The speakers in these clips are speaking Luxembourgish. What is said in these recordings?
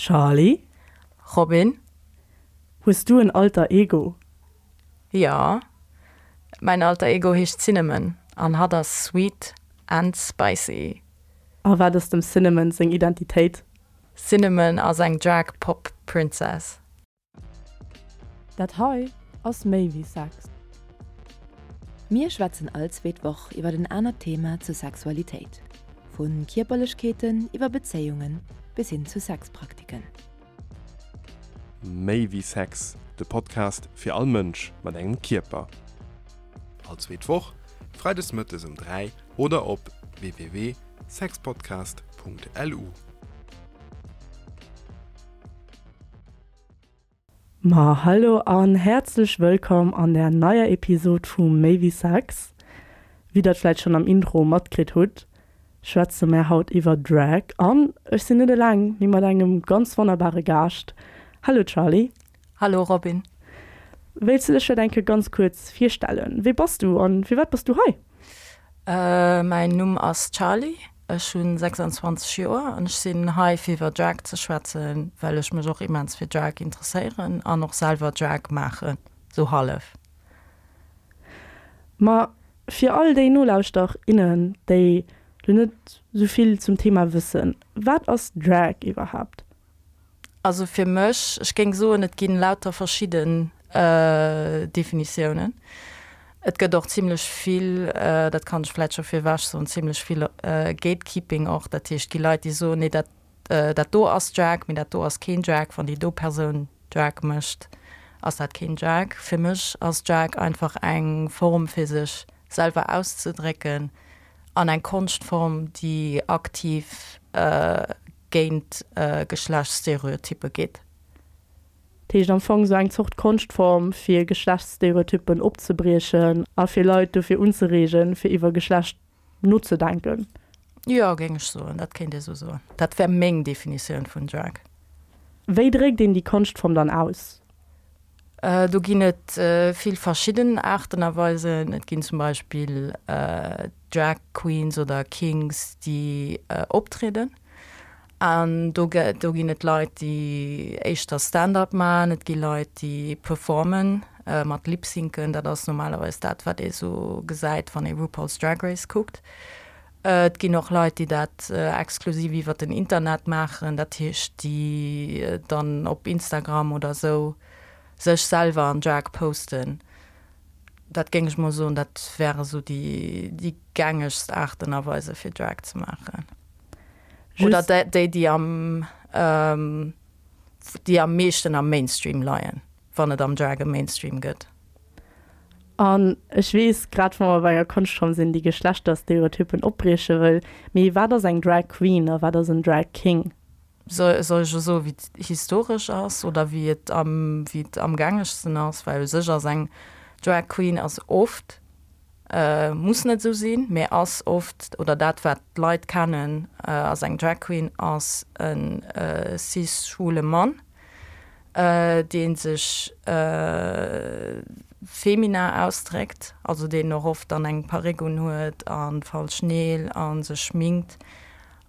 Charly? Robin? Hues du en Alter Ego? Jo, mäin Alter Ego heescht Cinnamon an hatt ass sweet and spicy. A wat ass dem Cinnamon seng Identitéit? Cinnamon ass eng Drag Pop Princess. Dat hei ass méi wéi Sex. Mir schwätzen all zweet Woch iwwer en anert Thema zur Sexualitéit, vu Kierperlechkeeten iwwer Bezéiungen bis hin zu Sexpraktiken. Méi wéi Sex, de Podcast fir all Mënsch mat engem Kierper. All zweet Woch, freides mëttes um 3 oder op www.sexpodcast.lu. Ma hallo an häerzlech wëllkomm an der neier Episod vu Méi wéi Sex. Wéi der et vläit schonn am Intro matkritt hutt, schwätze mär haut iwwer Drag an ech sinn net eleng, mee mat engem ganz wonnerbare Gaascht. Hallo Charly. Hallo Robin. Wéilts du dech vläit eng Kéier ganz kuerz virstellen? Wee bass du an firwat bass du hei? Mäin Numm ass Charly, ech hu 26 Joer an ech sinn hei fir iwwer Drag ze schwätzen, well ech mech och immens fir Drag interesséieren an och selwer Drag maachen, sou hallef. Ma fir all déi Nolauschter, innen, déi lo net sou vill zum Thema wëssen, wat ass Drag iwwerhaapt? Also fir mech, ech géing soen, et ginn lauter verschidden Definitiounen. Et gëtt och zimlech vill, dat kann ech vläicht scho virwech soen, zimlech vill Gatekeeping och. Dat heescht, et gi Leit, déi soen, nee dat, dat do ass Drag, mee dat do ass keen Drag. Wann déi do Persoun Drag mécht, ass dat keen Drag. Fir mech ass Drag einfach eng Form fir sech selwer auszedrécken an eng Konschtform, déi aktiv géint Geschlechtsstereotyppe geet. Dat heescht am Fong esou eng Zort Konschtform fir Geschlechtsstereotyppen opzebriechen a fir Leit dofir unzereegen, fir iwwer Geschlecht nozedenken. Jo, géing ech soen, dat kéint ee sou soen. Dat wär meng Definitioun vun Drag. Wéi dréckt een déi Konschtform dann aus? Do ginn et vill verschidden Aarten a Weisen. Et ginn zum Beispill Drag Queens oder Kings, déi optrieden. An do do ginn et Leit, déi éischter Stand-up maachen. Et gi Leit, déi performen mat Lipsyncen. Dat ass normalerweis dat, wat ee sou gesäit, wann ee RuPaul's Drag Race kuckt. Et ginn och Leit, déi dat exklusiv iwwer den Internet maachen, dat heescht, déi dann op Instagram oder esou sech selwer an Drag posten. Dat géing ech mol soen, dat wäre sou déi déi gängegst Aarten a Weise fir Drag ze maachen. Oder déi, déi am déi am meeschten am Mainstream leien, wann et am Drag e Mainstream gëtt. An ech weess, grad wa mer bei enger Konschtform sinn, déi Geschlechterstereotypen opbrieche wëll, mee wat ass eng Drag Queen a wat ass en Drag King? Soll ech elo soen, wéi et historesch ass oder wéi et am, wéi et am gängegsten ass? Well u sech ass eng Drag Queen ass oft, muss net esou sinn, mee ass oft, oder dat wat d'Leit kennen ass eng Drag Queen ass e cis-schwule Mann, dee sech feminin ausdréckt, also deen och oft dann eng Perréck unhuet a falsch Neel a sech schminkt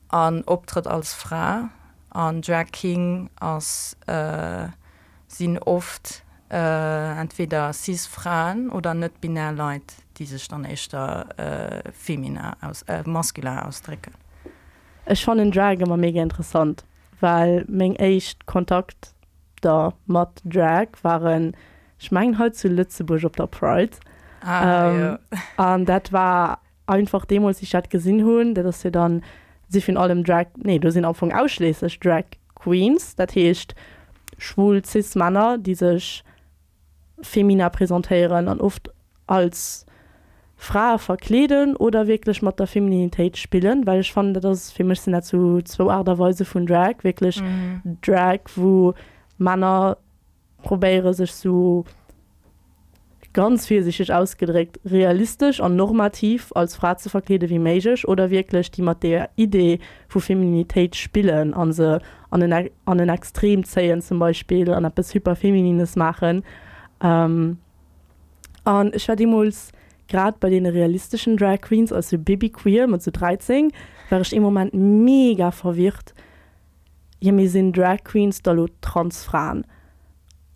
an optrëtt als Fra. An Drag King ass, sinn oft entweder cis Fraen oder net-binär Leit, déi sech dann éischter feminin, masculin ausdrécken. Ech fannen Drag ëmmer mega interessant. Well meng éischt Kontakter mat Drag waren, ech mengen hei zu Lëtzebuerg op der Pride. Ah, jo. An dat war einfach deemools, wéi ech dat gesinn hunn, dat ass jo dann, si virun allem Drag, nee, do sinn am Fong ausschliesslech Drag Queens, dat heescht schwul Cis-Männer, déi sech Femina presentéieren an oft als Frae verkleeden oder wierklech mat der Femininitéit spillen, well ech fannen, dat ass, fir mech sinn dat sou zwou Aart a Weise vun Drag, wierklech Drag, wou Männer probéiere sech sou, ganz virsichteg ausgedréckt, realistesch an normativ als Fra ze verkleede wéi méiglech oder wierklech déi mat der Idee vu Femininitéit spillen a se an en an en Extrem zéien zum Beispill an eppes Hyperfeminines maachen. An ech war deemools grad bei deene realisteschen Drag Queens als sou Baby Queer mat sou 13 war ech ee Moment mega verwirrt. Jo, mee sinn Drag Queens da lo Transfraen?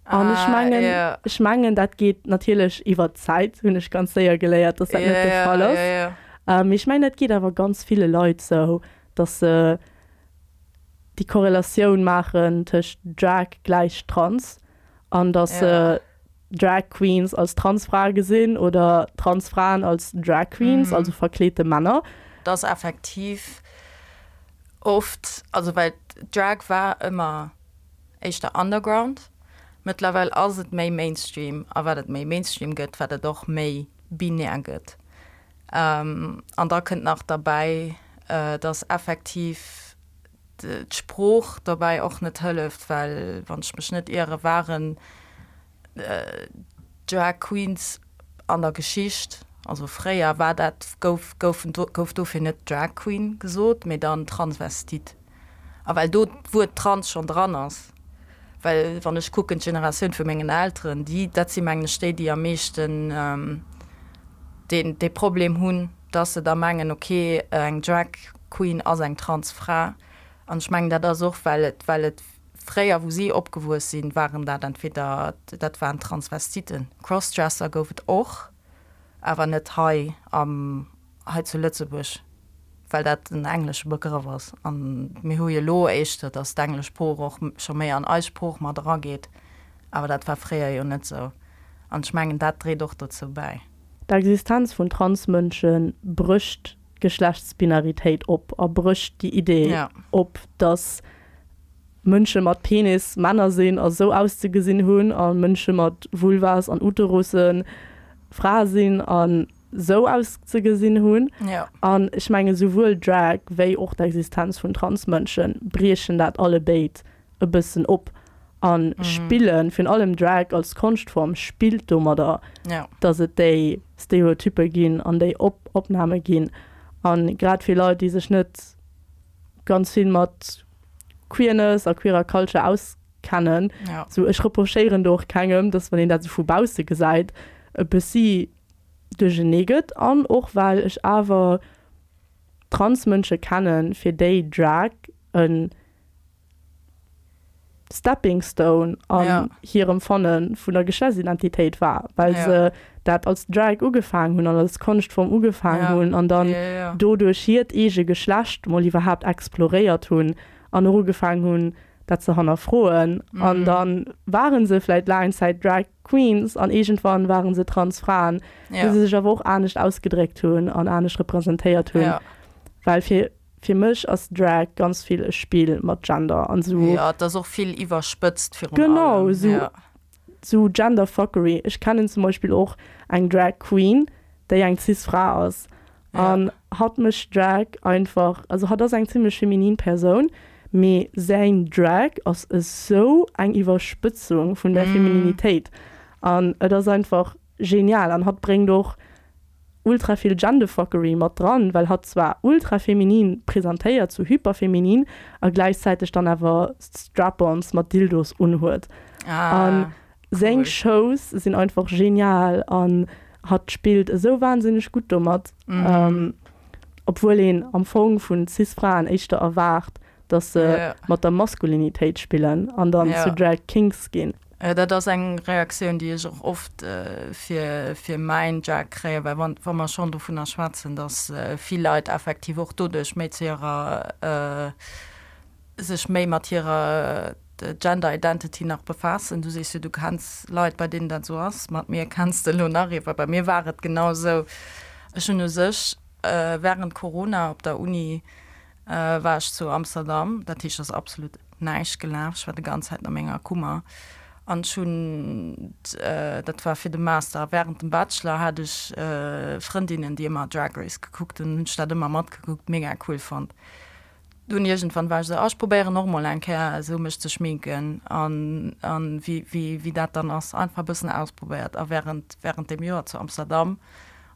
An ech mengen, ech mengen, dat geet natierlech iwwer d'Zäit, hunn ech ganz séier geléiert, dass dat net de Fall ass. Mee ech mengen, dat geet awer ganz ville Leit sou, dass se déi Korrelatioun maachen tëscht Drag gläich Trans an dass se Drag Queens als Transfrae gesinn oder Transfraen als Drag Queens, also verkleete Männer. Dat ass effektiv oft, also well Drag war ëmmer éischter Underground, mëttlerweil ass et méi Mainstream a wat et méi Mainstream gëtt, wat et och méi binär gëtt. An da kënnt nach derbäi, dass effektiv d'Sprooch dobäi och net hëlleft, well wann ech mech net iere waren Drag Queens an der Geschicht, also fréier war dat, gouf, goufen, gouf dofir net Drag Queen gesot, mee dann Transvestit. A well do d'Wuert trans schonn dran ass, well wann ech kucken d'Generatioun vu mengen Elteren, déi, dat si mengen ech déi, déi am meeschten deen, dee Problem hunn, dass se da mengen, ok, eng Drag Queen ass eng trans Fra. An ech mengen, dat ass och, well et, well et fréier, wou si opgewuess sinn, waren dat entweder, dat waren Transvestiten. Crossdresser gouf et och, awer net hei am, hei zu Lëtzebuerg, well dat en englesche Begrëff ass. An mir hu jo elo éischter, dass d'englesch Sprooch och scho méi an eis Sprooch mat erageet, awer dat war fréier jo net esou. An ech mengen, dat dréit och dozou bäi. D'Existenz vun Transmënsche brécht d'Geschlechtsbinaritéit op a brécht déi Idee op, dass Mënsche mat Penis Männer sinn a sou auszegesinn hunn a Mënsche mat Vulvas an Uterusse Frae sinn a sou auszegesinn hunn. An ech menge souwuel Drag wéi och d'Existenz vun Transmënsche briechen dat allebéid e bëssen op a spillen, virun allem Drag als Konschtform spillt domadder, dass et déi Stereotyppe ginn an déi Opname ginn. A grad fir Leit, déi sech net ganz vill mat Queerness a queerer Culture auskennen, sou ech reprochéieren do och kengem, dass wann een dat sou vu bausse gesäit, e bëssi duerchenee gëtt. An och well ech awer Transmënsche kennen, fir déi Drag e Stepping Stone an hirem Fanne vun der Geschlechtsidentitéit war, well se dat als Drag ugefaangen hunn an als Konschtform ugefaangen hunn an dann doduerch hiert eege Geschlecht mol iwwerhaapt exploréiert hunn an och ugefaangen hunn, dat ze hannerfroen. An da ware se vläicht laang Zäit Drag Queens an iergendwann ware se Transfraen, wou se sech awer och anescht ausgedréckt hunn an anescht representéiert hunn. Well fir Fir mech ass Drag ganz vill e Spill mat Gender an sou. Jo, et ass och vill iwwerspëtzt virun allem. Genau, sou, sou Genderfuckery. Ech kennen zum Beispill och eng Drag Queen, déi eng cis Fra ass. An hatt mécht Drag einfach, also hatt ass eng zimmlech feminin Persoun, mee säin Drag ass esou eng Iwwerspëtzung vun der Femininitéit. An et ass einfach genial. An hatt bréngt och ultra vill Genderfuckery mat dran, well hatt zwar ultra feminin presentéiert, sou hyperfeminin, a gläichzäiteg dann awer Strap-ons mat Dildos unhuet. An seng Shows sinn einfach genial an hatt spillt esou wahnsinneg gutt domat, obwuel een am Fong vun Cis-Fraen éischter erwaart, dass se mat der Maskulinitéit spillen an dann zu Drag Kings ginn. Dat ass eng Reaktioun, déi ech och oft fir fir mäin Drag kréien, well wann wa mer schonn dovunner schwätzen, dass vill Leit effektiv och doduerch méi zu hirer sech méi mat hirer Gender Identity nach befaassen. Du sees jo, du kenns Leit, bei deenen dat esou ass. Mat mir kenns de elo nach ee, well bei mir war et genau esou. Ech hunn u sech wärend Corona op der Uni war ech zu Amsterdam, dat heescht ass absolut näischt gelaf, ech war de ganz Zäit a menger Kummer an ech hunn, dat war fir de Master a während dem Bachelor hat ech Frëndinnen déi ëmmer Drag Race gekuckt hunn, hunn ech dat ëmmer matgekuckt, mega cool fonnt. Dunn iergendwann war ech esou, ah ech probéieren och mol eng Kéier esou mech ze schminken an an wéi wéi wéi dat dann ass, einfach e bëssen ausprobéiert a während während deem Joer zu Amsterdam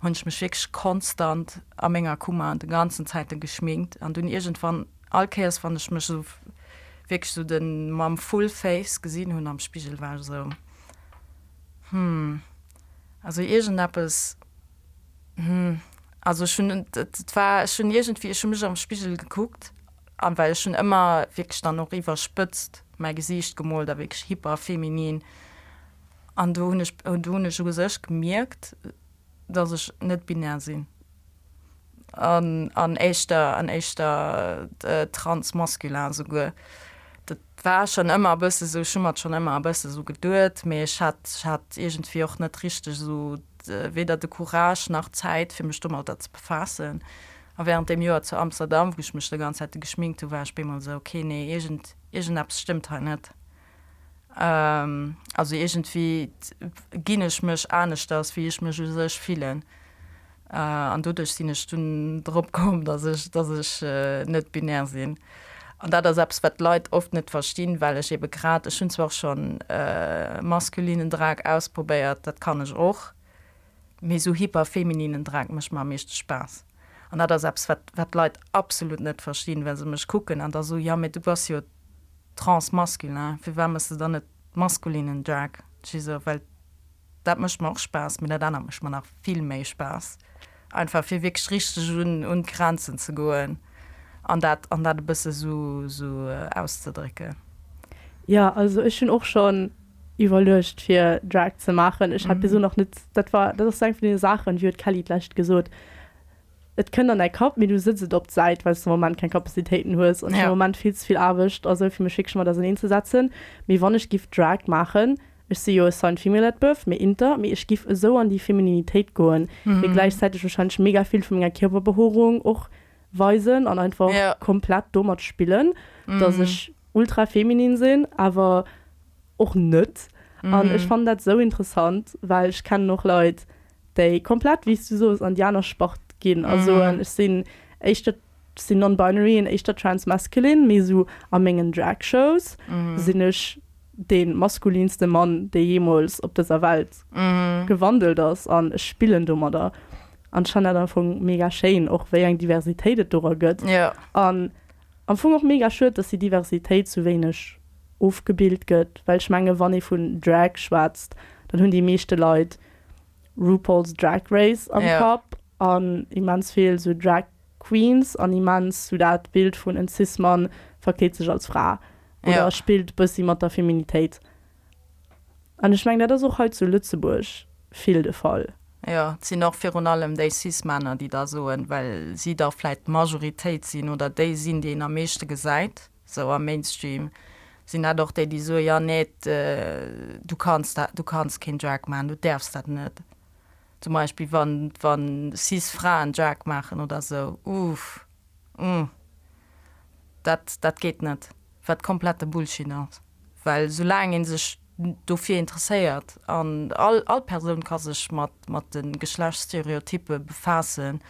hunn ech mech wierklech konstant a menger Kummer de ganzen Zäiten geschminkt an dunn iergendwann all Kéiers wann ech mech esou wierklech esou de mam full face gesinn hunn am Spigel war ech esou hm also iergendeppes hm also ech hunn et war ech hunn iergendwéi ech hu mech am Spigel gekuckt. An well ech hunn ëmmer wierklech dann och iwwerspëtzt mäi Gesiicht gemoolt a wierklech hyper feminin. An do hunn ech, do hunn ech u sech gemierkt, dass ech net binär sinn an an éischter an éischter transmasculin souguer. Dat war schonn ëmmer e bësse sou, ech hu mer et schonn ëmmer e bësse sou geduet, mee ech hat ech hat iergendwéi och net richteg esou weder de Courage nach d'Zäit fir mech domadder ze befaassen. A während deem Joer zu Amsterdam, wou ech mech de ganz Zäite geschminkt hu, war ech bemol esou, okay, nee, iergend iergendeppes stëmmt hei net. Also iergendwéi ginn ech mech aneschters, wéi ech mech u sech fillen. An doduerch sinn ech dunn drop komm, datt ech, datt ech net binär sinn. An dat ass eppes, wat d'Leit oft net verstinn, well ech ebe grad, ech hunn zwar och schonn maskulinen Drag ausprobéiert, dat kann ech och, mee esou hyperfemininen Drag mécht mer am meeschte Spaass. An dat ass eppes, wat, wat d'Leit absolut net verstinn, well se mech kucken an da soen, jo mee du bass jo Transmasculin, firwat mëss de dann net maskulinen Drag? Ech esou, well dat mécht mer och Spaass, mee dat anert mécht mer nach vill méi Spaass. Einfach fir wierklech richteg un un d'Grenzen ze goen an dat an dat e bësse sou sou auszedrécken. Jo, also ech hunn och schonn iwwerluecht fir Drag ze maachen. Ech hat bis elo nach net, dat war dat ass sou eng vun deene Saachen, wéi huet d'Kelly d'lescht gesot, Et kënnt an däi Kapp, mee du sëtz et op d'Säit, well s de am Moment keng Kapazitéiten hues an ech hunn am Moment vill ze vill Aarbecht a sou fir mech wierklech mat auserneen ze setzen. Mee wann ech giff Drag maachen, ech si jo assigned female at birth, mee inter, mee ech giff esou an déi Femininitéit goen, mee gläichzäiteg wahrscheinlech mega vill vu menger Kierperbehoerung och weisen an einfach komplett domat spillen, dass ech ultra feminin sinn, awer och net. An ech fannen dat esou interessant, well ech kennen och Leit, déi komplett, wéi s du soos, an déi aner Spart ginn a soen, ech sinn éischter, ech sinn non-binary an éischter trans-masculine, mee esou a mengen Drag-Shows sinn ech dee maskulinste Mann, dee jeemools op dëser Welt gewandelt ass an ech spillen domadder. An ech fannen dat am Fong mega schéin, och wéi eng Diversitéit et dora gëtt. An am Fong och mega schued, dass déi Diversitéit sou wéineg ofgebilt gëtt, well ech menge wann ee vun Drag schwätzt, dann hunn déi meeschte Leit RuPaul's Drag Race am ja. Kapp an immens vill sou Drag Queens an immens sou dat Bild vun en Cis-Mann verkleet sech als Fra oder ja. spillt bëssi mat der Feminitéit. An ech mengen dat ass och hei zu Lëtzebuerg vill de Fall. Jo, et sinn och virun allem déi Cis-Männer, déi da soen, well si da vläit d'Majoritéit sinn oder déi sinn, déi een am meeschte gesäit. Sou am Mainstream sinn dat och déi, déi soen, jo nee, du kanns dat, du kanns keen Drag maachen, du däerfs dat net. Zum Beispill wann, wann cis Fraen Drag maachen oder sou, uff, umm, dat, dat geet net, wat komplette Bullshit ass. Well soulaang ee sech dofir interesséiert, an all, all Persoun ka sech mat, mat de Geschlechtsstereotyppe befaassen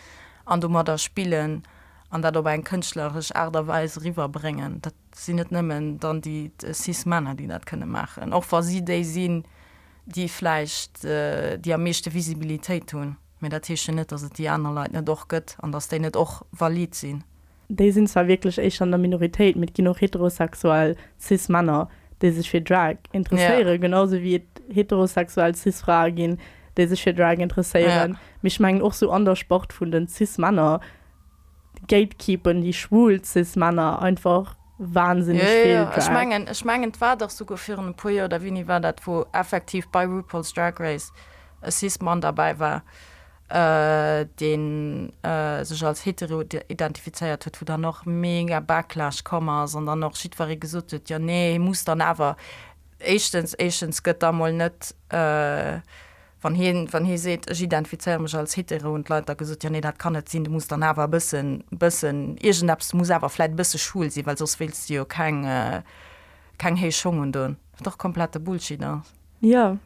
an domadder spillen, An dat op eng kënschtleresch Aart a Weis eriwwerbréngen. Dat sinn net nëmmen dann déi cis Männer, déi dat kënne maachen, och wa si déi sinn, déi vläicht déi am meeschte Visibilitéit hunn. Mä dat heescht jo net, datt et déi aner Leit net och gëtt an datt déi net och valid sinn. Déi sinn zwar wierklech éischter an der Minoritéit, mee et ginn och heterosexuell cis Männer, déi sech fir Drag interesséieren, genau sou wéi et heterosexuell cis Frae ginn, déi sech fir Drag interesséieren. Mee ech mengen och sou an der Spart vun den cis Männer gatekeepen déi schwul cis Männer einfach wahnsinneg vill Drag. Ech mengen, ech mengen et war dach souguer virun e puer Joer, oder wéini war dat, wou effektiv bei RuPaul's Drag Race e cis Mann derbäi war, dee sech als hetero identifizéiert huet, wou dann och mega Backlash komm ass an dann och jiddweree gesot huet, jo nee, hie muss dann awer, éischtens, éischtens gëtt da mol net, Wann hien, wann hie seet, ech identifizéiere mech als hetero, hunn d'Leit da gesot, jo nee, dat kann net sinn, du muss dann awer e bëssen, bëssen iergendeppes, du muss awer vläit e bësse schwul sinn, well soss wéilts de jo keng, keng héich Schong undoen. Wat och komplette Bullshit ass. Jo.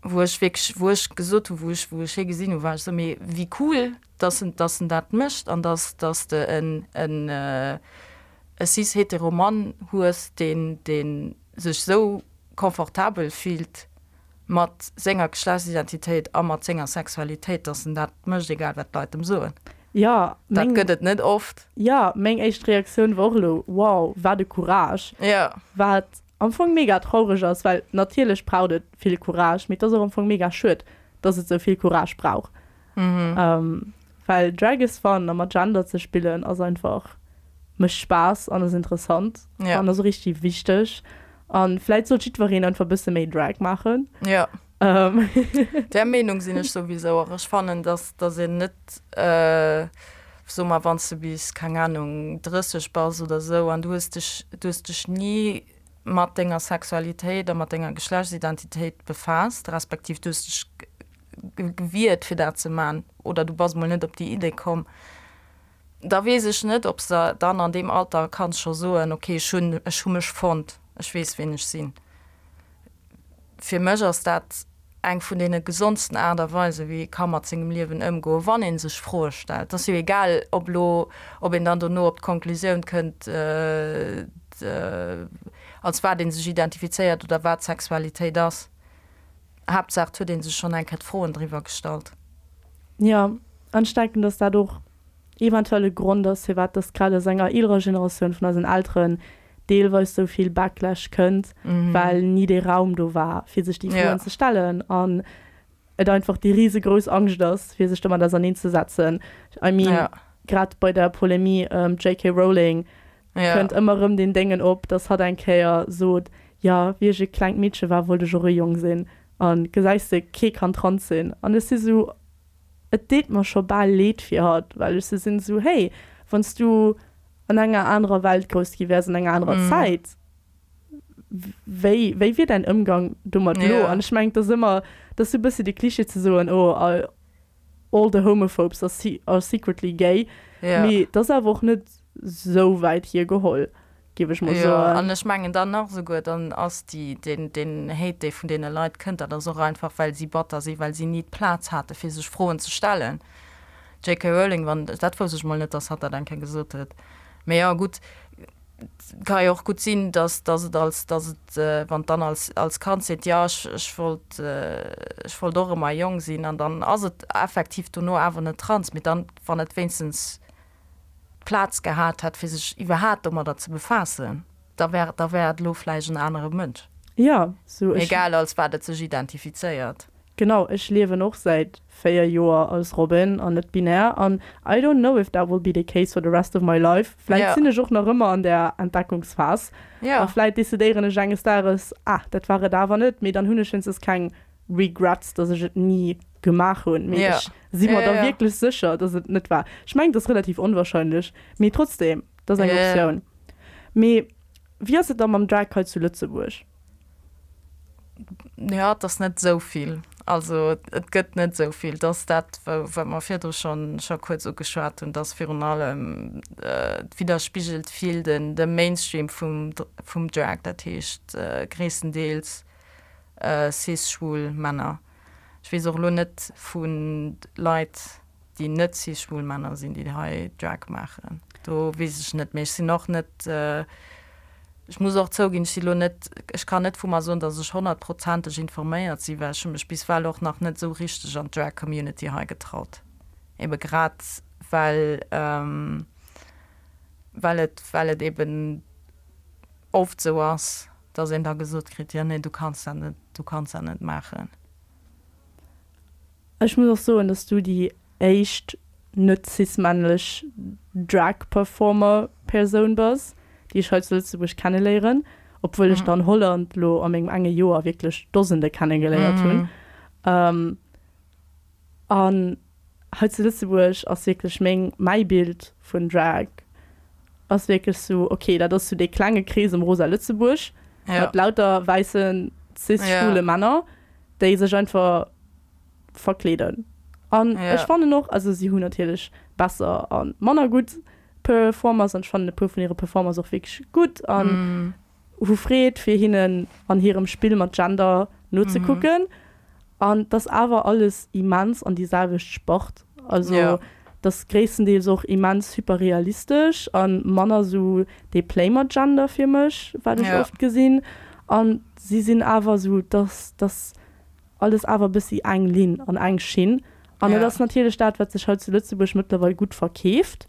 Wou ech wierklech, wou ech gesot hu, wou ech, wou ech hie gesinn hu, war ech esou, mee wéi cool, dass en, dass en dat mécht an dass, dass de en, en, e cis-hetero Mann hues, deen, deen sech esou confortabel fillt mat senger Geschlechtsidentitéit a mat senger Sexualitéit, dass en dat mécht, egal wat d'Leit em soen. Jo, Dat meng, gëtt et net oft. jo, meng éischt Reaktioun war och elo, wow, wat e Courage. Jo. Wat am Fong mega traureg ass, well natierlech braucht et vill Courage, mee et ass och am Fong mega schued, dass et sou vill Courage brauch. Well Drag is fun a mat Gender ze spillen ass einfach. Mécht Spaass an ass interessant Ja. an ass och richtig wichteg. An vläit sollt jiddwereen einfach e bësse méi Drag maachen. Ja. Ähm. Där Meenung sinn ech souwisou och. Ech fannen, dass, dass een net, soe mer, wann s de bis, keng Anung, 30 bass oder esou an du hues dech, du hues dech ni mat denger Sexualitéit a mat denger Geschlechtsidentitéit befaasst, respektiv du hues dech gewiert fir dat ze man oder du bass mol net op déi Idee komm, da weess ech net, ob s de dann an deem Alter kanns scho soen, okay, ech hunn, ech hu mech fonnt, ech weess ween ech sinn. Fir mech ass dat eng vun deene gesondsten Aart a Weisen, wéi ee ka mat sengem Liewen ëmgoen, wann ee sech Froe stellt. Et ass jo egal, ob elo, ob een dann dono op d'Konklusioun kënnt, als wat ee sech identifizéiert oder wat Sexualitéit ass. Haaptsaach, et huet ee sech schonn eng Kéier d'Froen driwwer gestallt. Jo, an ech denken, dass dat och eventuell e Grond ass, firwat dass grad aus enger eelerer Generatioun vun eisen Elteren deelweis sou vill Backlash kënnt, well ni dee Raum do war, fir sech déi Froen ze stellen an et einfach déi risegrouss Angscht ass, fir sech domat auserneenzesetzen. I mean, grad bei der Polemie ëm d'JK Rowling kënnt ëmmer erëm deen Déngen op, dass hatt eng Kéier sot, jo, wéi ech e klengt Meedche war, wollt ech och e Jong sinn a gesäis de, kee kann trans sinn. An ech si sou, Et deet mer scho bal leed fir hatt, well ech sou sinn, sou, hey, wann s du an enger anerer Welt grouss gi wäers, an enger anerer Zäit, wéi, wéi wier däin Ëmgang domat elo? An ech mengen, et ass ëmmer, et ass sou e bëssi de Cliché ze soen, oh, all the homophobes are, are secretly gay, mee et ass awer och net sou wäit hiergeholl. Géif ech mol Jo, soen. an ech mengen dann nach esouguer, dann ass déi, deen, deen Hate, dee vun deene Leit kënnt, dat ass och einfach, well si batter sinn, well si ni d'Plaz hate fir sech Froen ze stellen. JK. Rowling, wann, dat wousst ech mol net, dass hatt dat eng Kéier gesot huet. Mee jo, gutt, ka jo och gutt sinn, dass, dass et als, dass et, wann d'Anne als, als Kand seet, jo, ech, ech wollt, ech wollt och ëmmer e Jong sinn, an dann ass et effektiv dono awer net trans, mee dann, wann et wéinstens d'Plaz gehat hätt, fir sech iwwerhaat domadder ze befaassen, da wär, da wär et elo vläicht en anere Mënsch. Jo, sou ech. Egal als wat et sech identifizéiert. Genau, ech liewen och säit 4 Joer als Robin an net binär an I don't know if that will be the case for the rest of my life. Vläit sinn ech och nach ëmmer an där Entdeckungsphas a vläit decidéieren ech enges Dages, ah, dat war et awer net, mee dann hunn ech wéinstens keng Regrets, dass ech et ni gemaach hunn, mee ech si mer da wierklech sécher, dass et net war. Ech mengen, et ass relativ onwahrscheinlech, mee trotzdem, et ass eng Optioun. Mee wéi ass et da mam Drag hei zu Lëtzebuerg? Jo, et ass net esou vill. Also et gëtt net esou vill. Et ass dat, wat mer virdru schonn scho kuerz ugeschwat hunn, dass virun allem et widderspigelt vill den de Mainstream vum vum Drag, dat heescht gréisstendeels cis-schwul Männer. Ech weess och elo net vu Leit, déi net cis-schwul Männer sinn, déi hei Drag maachen. Do weess ech net. Mee ech sinn och net, ech muss och zouginn, ech si elo net, ech kann net vu mer soen, datt ech honnertprozenteg informéiert sinn, well ech hu mech bis well och nach net esou richteg an d'Drag-Community hei getraut. Ebe grad well, well et, well et eben oft esou ass, dass een da gesot kritt, jo nee, du kanns dat net, du kanns dat net maachen. Ech muss och soen, dass du déi éischt net cis-männlech Drag-Performer-Persoun bass, déi ech hei zu Lëtzebuerg kenneléieren, obwuel ech der an Holland lo a mengem enge Joer wierklech Dosende kennegeléiert hunn. An hei zu Lëtzebuerg ass wierklech meng, mäi Bild vun Drag ass wierklech sou, ok, dat ass sou dee klenge Krees ëm Rosa Lëtzebuerg mat lauter wäissen cis-schwule Männer, déi sech einfach verkleeden. An ech fannen och, also si hunn natierlech besser a manner gutt Performers an ech fannen e puer vun hire Performers och wierklech gutt an hu Freed fir hinnen an hirem Spill mat Gender nozekucken. An 't ass awer alles immens an déi selwecht Spart. Also 't ass gréisstendeels och immens hyperrealistesch a manner sou dee Play mat Gender fir mech, wat ech oft gesinn. An si sinn awer sou, 't ass alles awer e bëssi eng Linn an eng Schinn. An et ass natierlech dat, wat sech hei zu Lëtzebuerg mëttlerweil gutt verkeeft,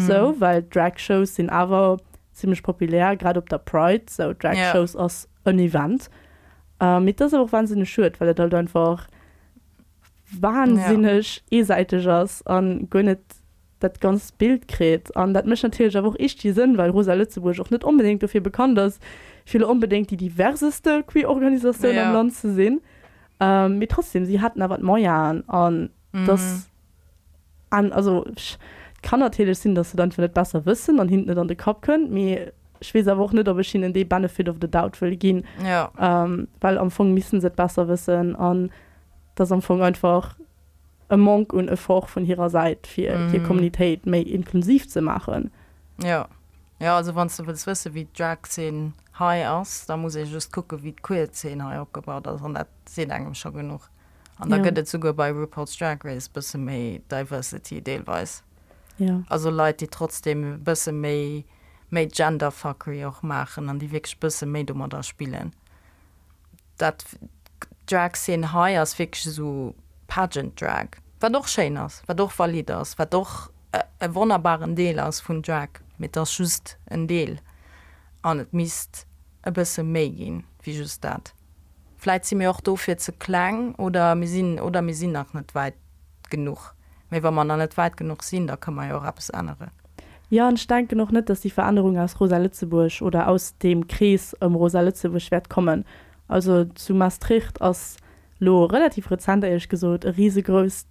sou, well Drag-Shows sinn awer zimmlech populär, grad op der Pride, sou Drag Shows ass en Event. Mee et ass awer och wahnsinneg schued, well et halt einfach wahnsinneg eesäiteg ass an guer net. dat ganzt Bild kritt. An dat mécht natierlech awer och iergdwi Sënn, well Rosa Lëtzebuerg och net onbedéngt dofir bekannt ass, fir elo onbedéngt déi diverseste queer Organisatioun am Land ze sinn. Mee trotzdem, si haten awer d'Moyenen an dass an also et kann natierlech sinn, dass se et einfach net besser wëssen an hinnen et net an de Kapp kënnt, mee ech weess awer och net, ob ech hinnen dee Benefit of the doubt wëll ginn, well am Fong missten se et besser wëssen an et ass am Fong einfach e Manque un Effort vun hirer Säit, fir hir Communitéit méi inklusiv ze maachen. Jo, jo, also wann s de wëlls wësse wéi d'Drag-Zeen hei ass, da muss ee just kucke wéi d'Queer-Zeen hei opgebaut ass an dat seet engem scho genuch. An da gëtt et souguer bei RuPaul's Drag Race e bësse méi Diversity deelweis. Jo. Also Leit, déi trotzdem e bësse méi, méi Genderfuckery och maachen an déi wierklech e bësse méi domadder spillen. Dat Drag Szene hei ass wierklech esou Pageant Drag, wat och schéin ass, wat och valid ass, wat och e wonnerbaren Deel ass vun Drag, mee et ass just en Deel an et misst e bësse méi ginn wéi just dat. Vläit si mir och dofir ze kleng oder mir sinn oder mir sinn nach net wäit genuch. Mee wa mer nach net wäit genuch sinn, da kënne mer jo och eppes änneren. Jo, an ech denken och net, dass déi Verännerung aus Rosa Lëtzebuerg oder aus deem Krees ëm Rosa Lëtzebuerg wäert kommen. Also zu Maastricht ass lo relativ rezent, éierlech gesot, e risegrousst,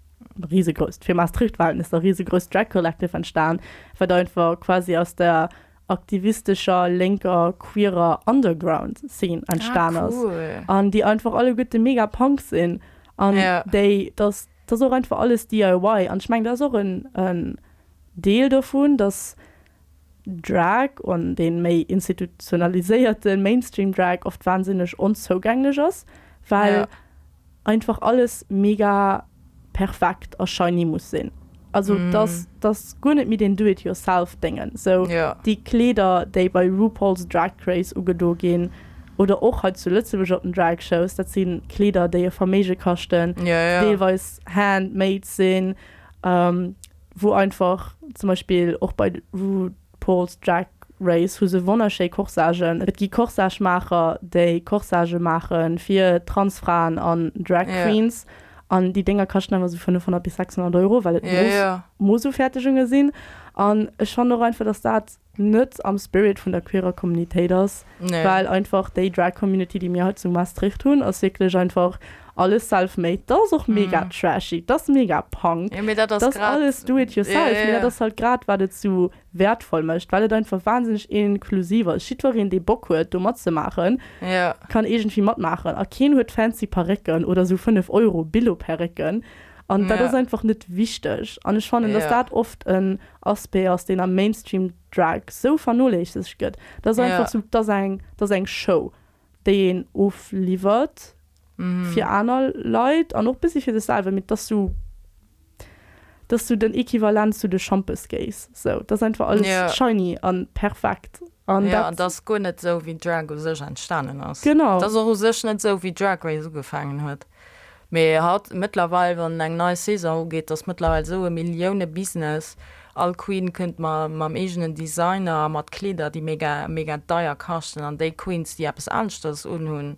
risegrousst, fir Maastricht-Verhältnisser, risegrousst Drag Collective entstan, wat einfach quasi aus der aktivistescher, lénker, queerer Underground-Scene entstan ass. An déi einfach alleguerte mega Punk sinn an déi, dass, dass och einfach alles DIY. An ech mengen, dat ass och en, en Deel dovun, dass Drag an dee méi institutionaliséierte Mainstream-Drag oft wahnsinneg onzougänglech ass, well einfach alles mega perfekt a shiny muss sinn. Also dass dass guer net méi deen Do-it-yourself-Déngen, sou déi Kleeder, déi bei RuPaul's Drag Race ugedo ginn oder och hei zu Lëtzebuerg op den Drag-Shows, dat si Kleeder, déi e Verméige kaschten, deelweis hand-made sinn. Wou einfach zum Beispill och bei RuPaul's Drag Race hu se wonnerschéi Corsagen. Et gi Corsage-Maacher, déi Corsagë maache fir Transfraen an Drag Queens. An déi Dénger kaschten awer esou 500 bis 600 Euro, well et Mooss-Ufertegunge sinn. An ech fannen och einfach, dass dat net am Spirit vun der queerer Communitéit ass, well einfach déi Drag Community, déi mir hei zu Maastricht hunn, ass wierklech einfach alles self-made. Dat ass och mega trashy, dat ass mega Punk, dat ass alles do it yourself, mee dat ass halt grad wat et sou wäertvoll mécht, well et einfach wahnsinneg inklusiv ass. Jiddwereen, dee Bock huet do matzemaachen, kann iergendwéi matmaachen a keen huet fancy Parécken oder sou 5 Euro Billo-Perrécken an dat ass einfach net wichteg an ech fannen, dass dat oft en Aspect ass, deen am Mainstream Drag sou vernoléissegt gëtt. Dat ass einfach sou, dat ass eng, dat ass eng Show, déi een ofliwwert fir aner Leit an och bëssi fir sech selwer, mee dat ass sou, dat ass sou den Equivalent zu de Schampes-Gays, sou. Dat ass einfach alles shiny a perfekt an dat. Jo, an dat ass guer net sou, wéi Drag u sech entstanen ass. Genau. Dat ass och u sech net sou, wéi Drag Race ugefaangen huet. Mee haut, mëttlerweil, wann eng nei Saison ugeet, ass mëttlerweil esou e Millioune-Business. All Queen kënnt ma mam eegenen Designer a mat Kleeder, déi mega, mega deier kaschten. An déi Queens, déi eppes aneschters unhunn,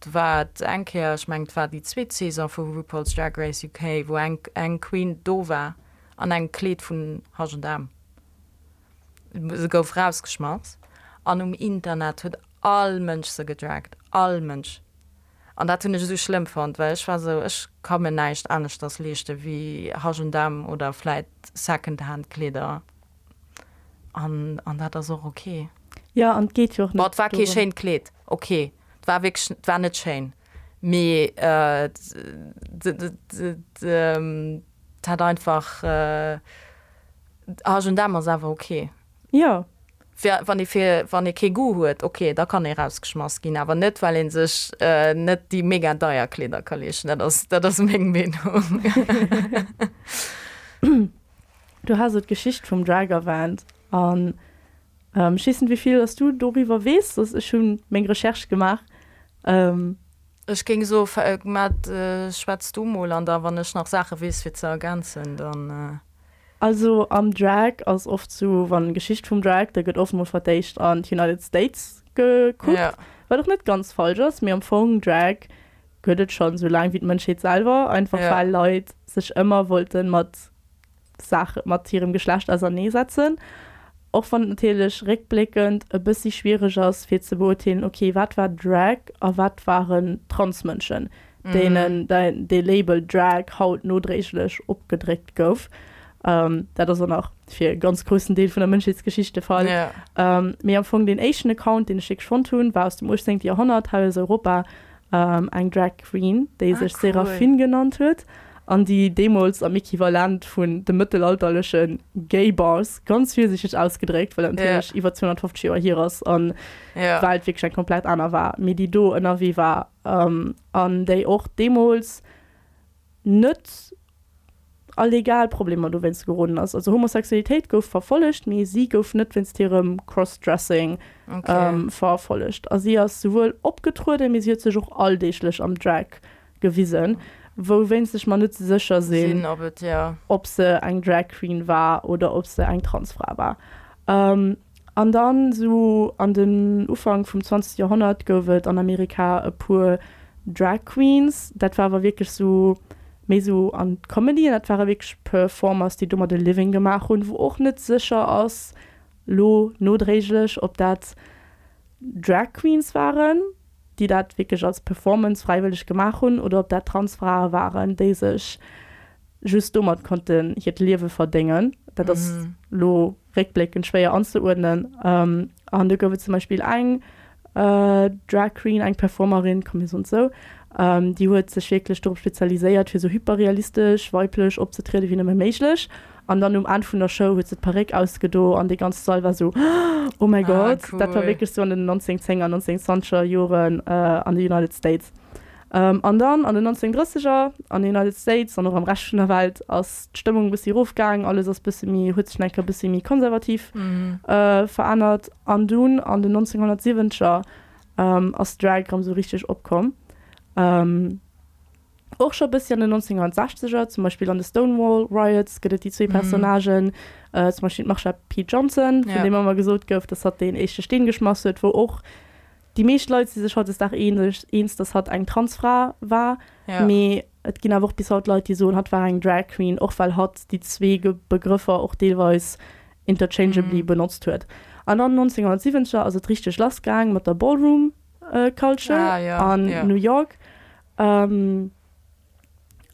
do war et eng Kéier, ech mengen, et war déi zweet Saison vu RuPaul's Drag Race UK, wou eng, eng Queen do war an engem Kleed vun H&M. Se gouf rausgeschmass an um Internet huet all Mënsch se gedragt, all Mënsch. An dat hunn ech esou schlëmm fonnt, well ech war esou, ech ka mir näischt aneschters leeschte wéi H&M oder vläit Secondhand Kleeder an an dat ass och ok. Jo, an et geet jo och net Bon, et war kee schéint Kleed, ok, et war wierklech, et war net schéin, mee et hat einfach, H&M ass awer ok. Jo. Fir wann ee fir wann ee kee Goût huet, ok, da kann ee rausgeschmass ginn, awer net well ee sech net déi mega deier Kleeder ka leeschten. Dat ass dat ass meng Meenung. Du has elo d'Geschicht vum Drag erwähnt an ech weess net wéi vill dass du doriwwer weess, dass ech hunn meng Recherche gemaach. Ech géing soe Matt, schwätz du mol an da wann ech nach Saache weess fir ze ergänzen, dann. Also am Drag ass oft sou, wann Geschicht vum Drag, da gëtt oft mol fir d'éischt an d'United States gekuckt, Ja. wat och net ganz falsch ass, mee am Fong Drag gëtt et schonn sou laang wéi d'Mënschheet selwer, einfach Ja. well Leit sech ëmmer wollte mat. Saach mat hirem Geschlecht auserneesetzen. Och wann et natierlech réckbléckend e bëssi schwiereg ass fir ze beurteelen, ok, wat war Drag a wat waren Transmënschen, deenen dee Label Drag haut nodréiglech opgedréckt gouf. Dat ass och nach fir e ganz groussen Deel vun der Mënschheetsgeschicht de Fall. Mee am Fong deen éischten Account, deen ech wierklech fonnt hunn, war aus dem 18. Joerhonnert hei aus Europa, eng Drag Queen, déi sech Seraphine genannt huet an déi deemools am Equivalent vun de mëttelalterleche Gay Bars, ganz virsiichteg ausgedréckt, well dat natierlech iwwer 250 Joer hier ass an d'Welt wierklech eng komplett aner war, mee déi do ënnerwee war an déi och deemools net a legal Problemer dowéinst geroden ass. Also Homosexualitéit gouf verfollegt, mee si gouf net wéinst hirem Crossdressing verfollegt. A si ass souwuel opgetrueden, mee si huet sech och alldeeglech am Drag gewisen, wouwéinst ech mer net sécher sinn, ob se eng Drag Queen war oder ob se eng Transfra war. An dann sou an den Ufank vum 20. Joerhonnert gouf et an Amerika e puer Drag Queens. Dat war awer wierklech sou méi sou an d'Comedy an dat ware wierklech Performers, déi domat e Living gemaach hunn, wou och net sécher ass lo nodréiglech, ob dat Drag Queens waren, déi dat wierklech als Performance fräiwëlleg gemaach hunn oder ob dat Transfrae waren, déi sech just domat konnten hiert Liewe verdéngen. Dat ass lo réckbléckend schwéier anzeuerdnen. An do gouf et zum Beispill eng Drag Queen, eng Performerin, komm mir soen et esou, déi huet sech wierklech dorop spezialiséiert, fir esou hyperrealistesch weiblech opzetriede wéi nëmme méiglech. An dann um Enn vun der Show huet se d'Paréck ausgedo an dee ganze Sall war esou, Oh mäi Gott! Dat war wierklech esou an den 1910er, 1920er Joren an de United States. An dann an den 1930er an den United States an och am Rescht vun der Welt ass d'Stëmmung e bëssi erofgaang, alles ass bësse méi, huet sech nach eng Kéier e bëssi méi konservativ verännert. An dunn an den 1970er ass Drag erëm esou richteg opkomm. Och scho bëssi an den 1960er, zum Beispill an de Stonewall Riots gëtt et déi zwee Personnagen, zum Beispill d'Marsha P. Johnson, vun deem ëmmer gesot gouf, datt hatt deen éischte Steen geschmass huet, wou och Déi meescht Leit si sech hautdesdaags eens, datt hatt eng Transfra war, mee et ginn awer och bis haut Leit, déi soen, hatt war eng Drag Queen, och well hatt déi zwee Begrëffer och deelweis interchangeably benotzt huet. An dann 1970er ass et richteg lass gaang mat der Ballroom Culture an New York. An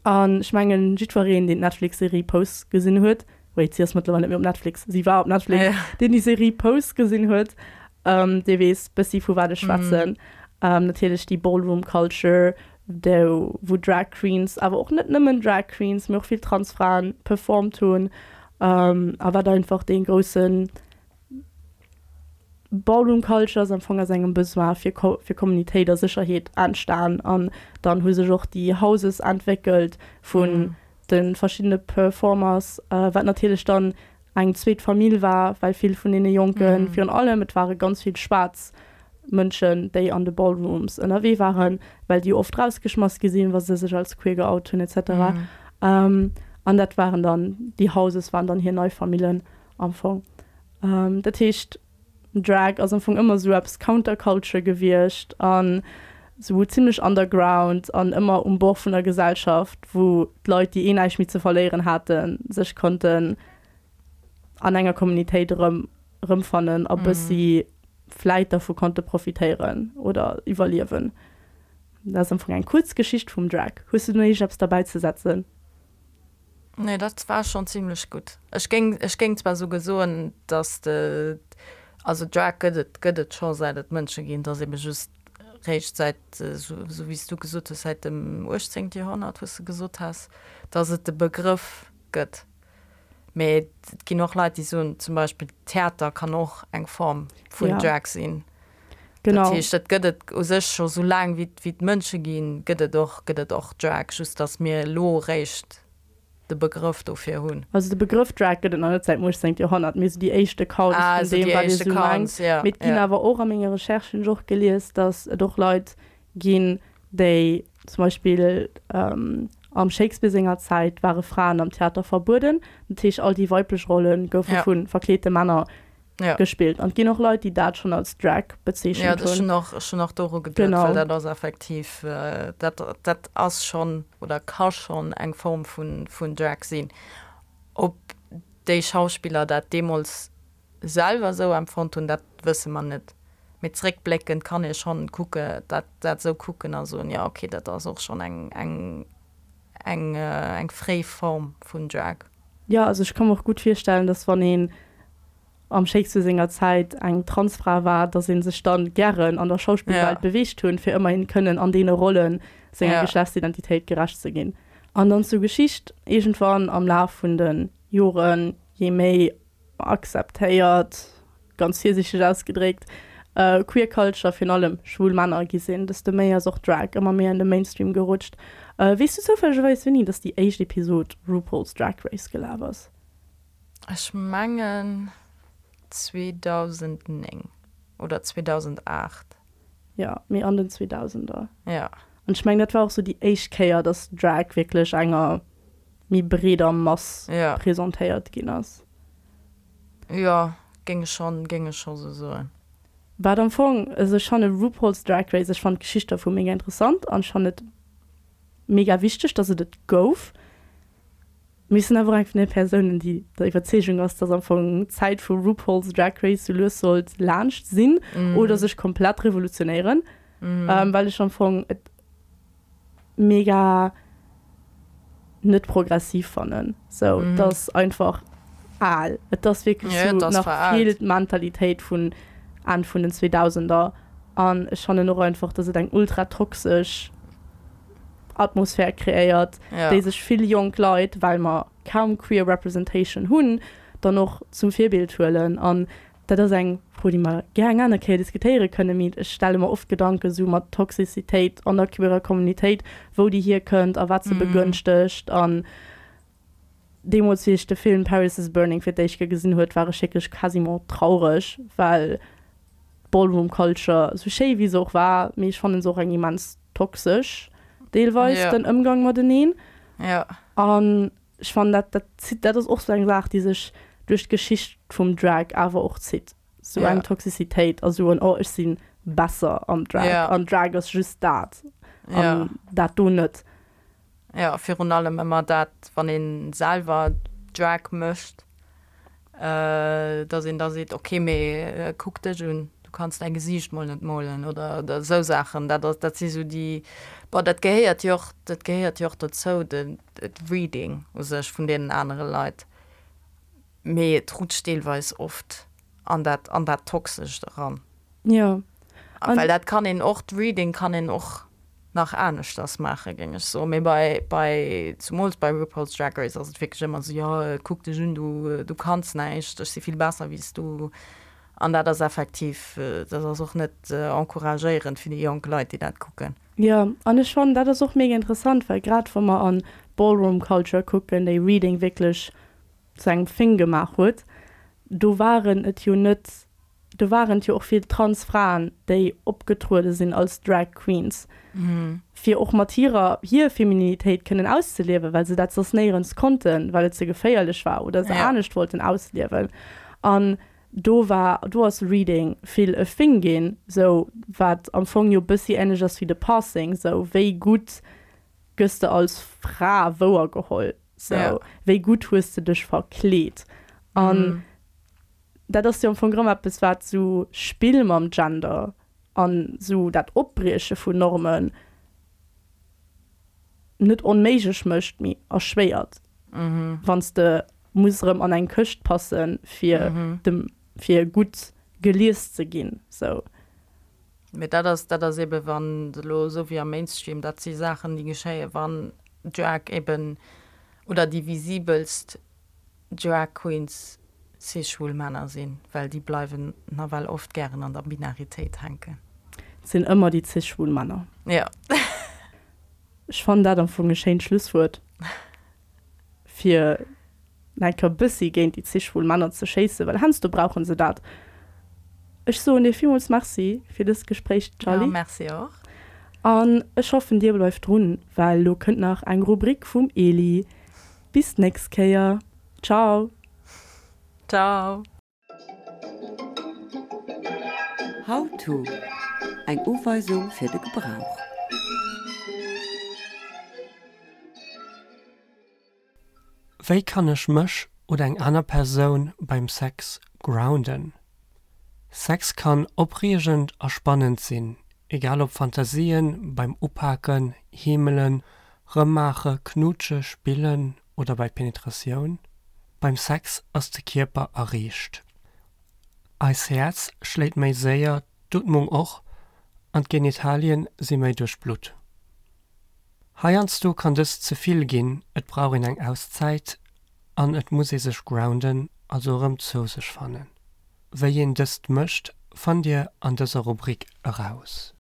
ech mengen, jiddwereen, deen d'Netflix-Serie Pose gesinn huet, wait, si ass mëttlerweil net méi op Netflix, si war op Netflix, deen déi Serie Pose gesinn huet, dee weess bëssi vu wat ech schwätzen. Natierlech déi Ballroom Culture, do wou Drag Queens, awer och net nëmmen Drag Queens, mee och vill Transfraen performt hunn, a wat einfach dee groussen Ballroom Culture ass am Fong aus engem Besoin fir fir Kommunitéit a Sécherheet entstan an dann hu sech och déi Houses entwéckelt vun de verschiddene Performers, wat natierlech dann eng zweet Famill war, well vill vun deene Jonken, virun allem et ware ganz vill schwaarz Mënschen, déi an de Ballrooms ënnerwee waren, well déi oft rausgeschmass gi sinn, wa se sech als queer geout hunn et cetera. An dat waren dann, déi Houses waren dann hir nei Famillen am Fong. Dat heescht, Drag ass am Fong ëmmer esou eppes Counterculture gewiescht an esou zimmlech underground an ëmmer um Bord vun der Gesellschaft, wou d'Leit, déi eh näischt méi ze verléieren haten, sech konnten an enger Communitéit erëm erëmfannen a bëssi vläit dervu konnte profitéieren oder iwwerliewen. Dat ass am Fong eng kuerz Geschicht vum Drag. Hues du do nach iergendeppes derbäizesetzen? Nee, dat war schon zimlech gutt. Ech géing, ech géing zwar souguer soen, dass de, also Drag gëtt et, gëtt et scho säit et Mënsche ginn, et ass ebe just réischt säit, esou wéi s du gesot hues, säit dem 18. Joerhonnert, wou s de gesot has, dass et de Begrëff gëtt. Mee et ginn och Leit, déi soen zum Beispill, Theater kann och eng Form vun Drag sinn. Genau. Dat heescht, dat gëtt et u sech scho sou laang wéi et Mënsche ginn, gëtt et och, gëtt et och Drag, just datt mir elo eréischt de Begrëff dofir hunn. Also de Begrëff Drag gëtt et nach net säit dem 18. Joerhonnert, mee sou déi éischt Accounts Ah, vun sou deem, déi wat ee éischt sou mengt. Accounts, ja, Mee et ginn ja. awer och, a menge Recherchen hunn ech och gelies, datt et och Leit ginn, déi zum Beispill am Shakespeare senger Zäit ware Fraen am Theater verbueden, dat heescht all déi weiblech Rolle goufe Ja. vu verkleete Männer ja. gespillt. An et ginn och Leit, déi dat schonn als Drag bezeechent ja, hunn. Ja, ech hunn och doru geduet, Genau. well dat ass effektiv, äh, dat, dat ass schonn oder ka schonn eng Form vun, vun Drag sinn. Ob. déi Schauspiller dat deemools selwer esou empfonnt hunn, dat wësse mer net. Mee zréckbléckend kann ee schonn kucke, dat dat esou kucken a soen, jo okay, dat ass och schonn eng eng eng eng fréi Form vun Drag. Jo, also ech ka mer och gutt virstellen, dass wann een am Shakespeare senger Zäit eng Transfra war, dass ee sech dann gären an der Schauspillwelt beweegt hunn, fir ëmmerhin kënnen an deene Rollen senger Geschlechtsidentitéit gerecht ze ginn. An dann zur Geschicht, Iergendwann am Laf vun de Joren, jee méi akzeptéiert, ganz virsiichteg ausgedréckt, Queer Culture, virun allem schwul Männer, gi sinn, desto méi ass och Drag ëmmer méi an de Mainstream gerutscht. Weess du zoufällegerweis wéini dass déi éischt Episod RuPaul's Drag Race gelaf ass? Ech mengen 2009 oder 2008. Jo, mee an den Zweedausender. Jo. An ech mengen dat war och sou déi éischt Kéier, dass Drag wierklech enger méi breeder Mass presentéiert ginn ass. Jo, géing ech schonn, géing ech scho sou soen. Wat am Fong, also ech fanne RuPaul's Drag Race, ech fannen d'Geschicht dervu mega interessant an ech fannen et mega wichteg, dass et et gouf. Mee ech sinn awer och eng vun de Persounen, déi der Iwwerzeegung ass, dass am Fong d'Zäit vu RuPaul's Drag Race sou lues sollt laanscht sinn oder sech komplett revolutionéieren, well ech am Fong et mega net progressiv fannen. Sou, et ass einfach al. Et ass wierklech sou nach vill d'Mentalitéit vun Enn vun den Zweedausender. An ech fannen och einfach, dass et eng ultra toxesch Atmosphär kreéiert, déi sech vill jonk Leit, well mer kaum queer representation hunn, dann och zum Virbild huelen. An Dat ass eng Fro, déi mer gär eng aner Kéier diskutéiere kënnen, mee ech stelle mer oft Gedanke sou mat Toxicitéit an der queerer Communitéit, wou déi hierkënnt a wat se begënschtegt. An deemools, wéi ech de Film Paris is Burning fir d'éischt Kéier gesinn huet, war ech wierklech quasiment traureg, well d'Ballroom Culture, sou schéi wéi se och war, mee ech fannen se och eng immens toxesch deelweis, den Ëmgang mateneen. An Ech fannen dat, dat zitt, dat ass och sou eng Saach, déi sech duerch d'Geschicht vum Drag awer och zitt. Sou eng Toxicitéit a sou en, oh ech si besser am Drag an Drag ass just dat an dat do net. Jo, virun allem ëmmer dat, wann ee selwer Drag mécht, Dass een da seet, ok, mee kuck dech un, du kanns däi Gesiicht mol net molen oder esou Saachen. Dat ass, dat si sou déi, bon, dat gehéiert jo och, dat gehéiert jo och dozou, de Reading u sech vun deenen anere Leit. Mee et rutscht deelweis oft an dat, an dat Toxescht eran. Jo. Well dat kann een och, d'Reading kann een och nach aneschters maachen, géing ech soen. Mee bei, bei, zumools bei RuPaul's Drag Race ass et wierklech ëmmer esou, jo, kuck dech un, du, du kanns näischt, ech si vill besser wéi s du. An dat ass effektiv, dat ass och net encouragéierend fir déi jonk Leit, déi dat kucken. Jo, an ech fannen, dat ass och mega interessant, well grad wa mer an d'Ballroom Culture kucken, déi Reading wierklech zu engem Thing gemaach huet, do waren et jo net Do waren et jo och vill trans Fraen, déi opgetruede sinn als Drag Queens, fir och mat hirer hir Femininitéit kënnen auszeliewen, well se dat soss néierens konnten, well et ze geféierlech war oder se anescht wollten ausliewen. An do war, do ass Reading vill e Thing ginn, sou wat am Fong jo bëssi änlech ass wéi de Passing, sou wéi gutt gëss de als Fra wouergeholl, sou wéi gutt hues de dech verkleet. An Dat ass jo am Fong erëm eppes, wat esou Spill mam Gender an esou dat Opbrieche vun Normen net onméiglech mécht, mee erschwéiert, wann s de muss erëm an eng Këscht passen, fir dem, fir gutt gelies ze ginn, sou. Mee dat ass, dat ass ebe wann elo esou wéi am Mainstream, dat si Saachen, déi geschéien, wann Drag eben oder déi visibelst Drag Queens cis-schwul Männer sinn, well déi bleiwen nawell oft gären an der Binaritéit hänken. Et sinn ëmmer déi cis-schwul Männer. Jo. Ech fannen dat am Fong e schéint Schlusswuert, fir nach eng Kéier e bëssi géint déi cis-schwul Männer ze schéissen, well heiansdo brauche se dat. Ech soen dir villmools Merci fir dëst Gespréich, Charly. Jo, merci och. An ech hoffen, dir bleift drun, well lo kënnt nach eng Rubrik vum Eli. Bis d'nächst Kéier. Ciao. Ciao. How to, Eng Uweisung fir de Gebrauch. Wéi kann ech mech. oder eng aner Persoun beim Sex grounden? Sex kann opreegend a spannend sinn, egal ob Fantasien beim Upaken, Heemelen, Rëmmaache, Knutsche, Spillen oder bei Penetratioun. Beim Sex ass de Kierper erreegt. Eis Häerz schléit méi séier, d'Ootmung och, an d'Genitalien si méi duerchblutt. Heiansdo kann dëst ze vill ginn, et brauch een eng Auszäit an et muss ee sech grounden, also erëm zou sech fannen. Wéi een dëst mécht, fannt dir an dëser Rubrik eraus.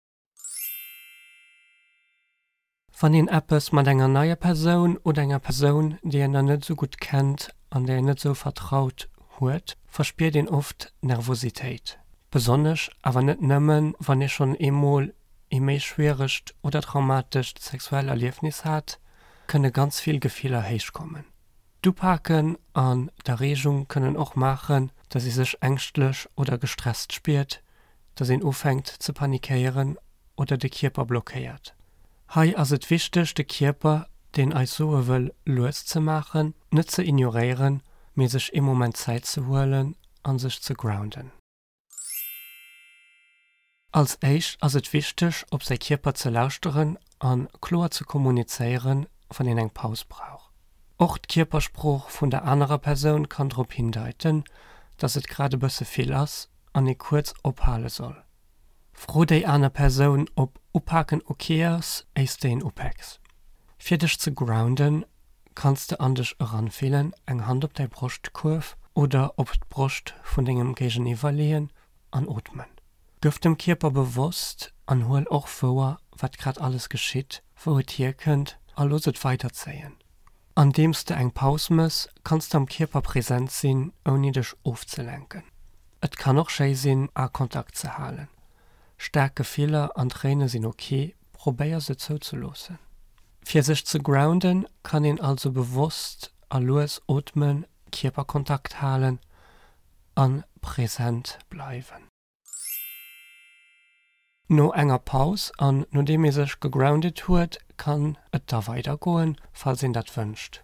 Wann een eppes mat enger neier Persoun oder enger Persoun, déi een nach net esou gutt kennt an där een net esou vertraut, huet, verspiert een oft Nervositéit. Besonnesch, awer net nëmmen, wann ee schonn eemol ee méi schwieregt oder traumatescht sexuell Erliefnis hat, kënne ganz vill Gefiller héichkommen. D'Upaken an d'Erreegung kënnen och maachen, dass ee sech ängschtlech oder gestresst spiert, dass een ufänkt ze panikéieren oder de Kierper blockéiert. Hei ass et wichteg de Kierper, deen eis soe wëll lues ze maachen, net ze ignoréieren, mee sech ee Moment Zäit ze huelen an sech ze grounden. Als éischt ass et wichteg op säi Kierper ze lauschteren an kloer ze kommunizéieren, wann een eng Paus brauch. Och d'Kierpersprooch vun der anerer Persoun kann drop hindeiten, dass et grad e bësse vill ass an ee kuerz ophale soll. Fro déi aner Persoun ob upaken ok ass, éiss de een upäks. Fir dech ze grounden, kanns de an dech eranfillen, eng Hand op däi Broschtkuerf oder op d'Broscht vun dengem Géigeniwwer leeën an ootmen. Gëff dem Kierper bewosst an huel och wouer, wat grad alles geschitt, wou et hierkënnt a looss et weiderzéien. Andeems de eng Paus mëss, kanns de am Kierper present sinn, ouni dech ofzelenken. Et kann och schéi sinn, Akontakt ze halen. Staark Gefiller an Tréine sinn ok, probéier se zouzeloossen. Fir sech ze grounden, kann een also bewosst a lues ootmen, Kierperkontakt halen an present bleiwen. No enger Paus an nodeem ee sech gegrounded huet, kann et da weider goen, falls een dat wënscht.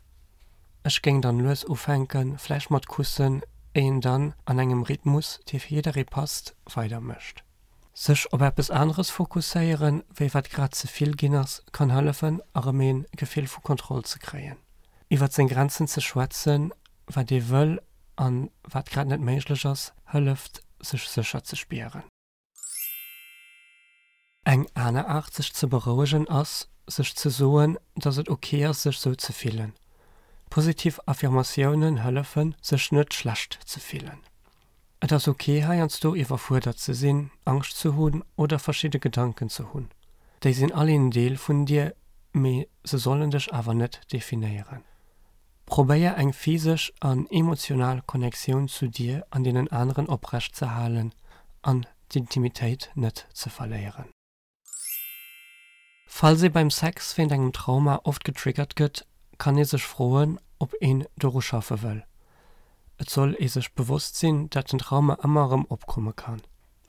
Ech géing dann lues ufänken, vläicht mat Kussen, éi een dann an engem Rhythmus, dee fir jidderee passt, weider mécht. Sech op eppes aneres fokusséieren, wéi wat grad ze vill ginn ass, kann hëllefen erëm een Gefill vu Kontroll ze kréien. Iwwert seng Grenzen ze schwätzen, wat ee wëll an wat grad net méiglech ass, hëlleft sech sécher ze spieren. Eng aner Aart sech ze berouegen ass, sech ze soen, dass et ok ass sech sou ze fillen. Positiv Affirmatiounen hëllefen, sech net schlecht ze fillen. Et ass ok heiansdo iwwerfuerdert ze sinn, Angscht ze hunn oder verschidde Gedanken ze hunn. Déi sinn all een Deel vun dir, mee se sollen dech awer net definéieren. Probéier eng physesch an emotional Connectioun zu dir an deenen aneren oprecht ze halen an d'Intimitéit net ze verléieren. Falls ee beim Sex wéint engem Trauma oft getriggert gëtt, kann ee sech froen, ob een doru schaffe wëll. Et soll ee sech bewosst sinn, dat den Trauma ëmmer erëm opkomme kann.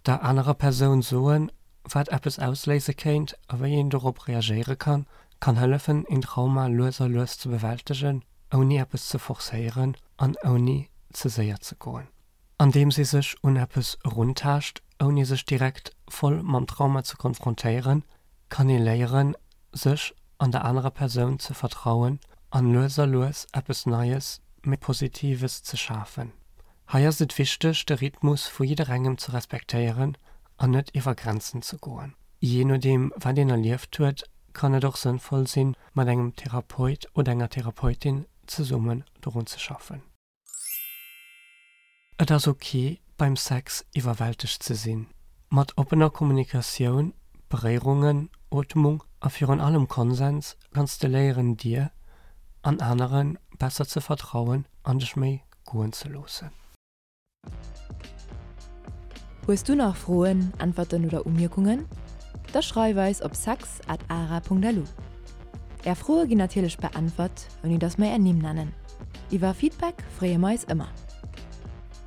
Der anerer Persoun soen, wat eppes ausléise kéint a wéi een dorop reagéiere kann, kann hëllefen, een Trauma lues a lues ze bewältegen, ouni eppes ze forcéieren an ouni ze séier ze goen. Andeems ee sech un eppes eruntaascht, ouni sech direkt voll mam Trauma ze konfrontéieren, kann ee léieren, sech an der anerer Persoun ze vertrauen an lues a lues eppes Neies, méi Positives ze schafen. Hei ass et wichteg, de Rhythmus vu jidderengem ze respektéieren an net iwwer Grenzen ze goen. Jee nodeem wat een erlieft huet, kann et och sënnvoll sinn, mat engem Therapeut oder enger Therapeutin zesummen dorun ze schaffen. Et ass ok, beim Sex iwwerwältegt ze sinn. Mat oppener Kommunikatioun, Beréierungen, Ootmung a virun allem Konsens kanns de léieren dir an anere besser ze vertrauen an dech méi goen ze loossen. Hues du nach Froen, Äntwerten oder Umierkungen? Da schreif eis op sex at ara.lu. Är Froe ginn natierlech beäntwert, ouni dass mer är Nimm nennen. Iwwer Feedback freeë mer eis ëmmer.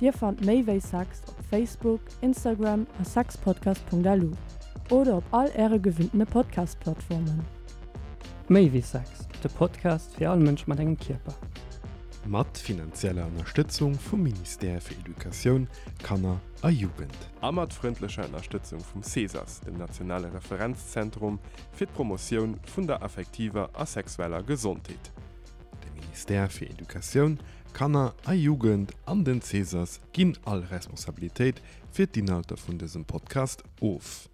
Dir fannt méi wéi Sex op Facebook, Instagram a sexpodcast.lu oder op all äre gewinntene Podcast-Plattformen. Méi wéi Sex, de Podcast fir all Mënsch mat engem Kierper. Mat finanzieller Ënnerstëtzung vum Ministère fir Educatioun, Kanner a Jugend. A mat frëndlecher Ënnerstëtzung vum CESAS, dem nationale Referenzzentrum fir d'Promotioun vun der affektiver a sexueller Gesondheet. De Ministère fir Educatioun, Kanner a Jugend an den CESAS ginn all Responsabilitéit fir d'Inhalter vun dësem Podcast of.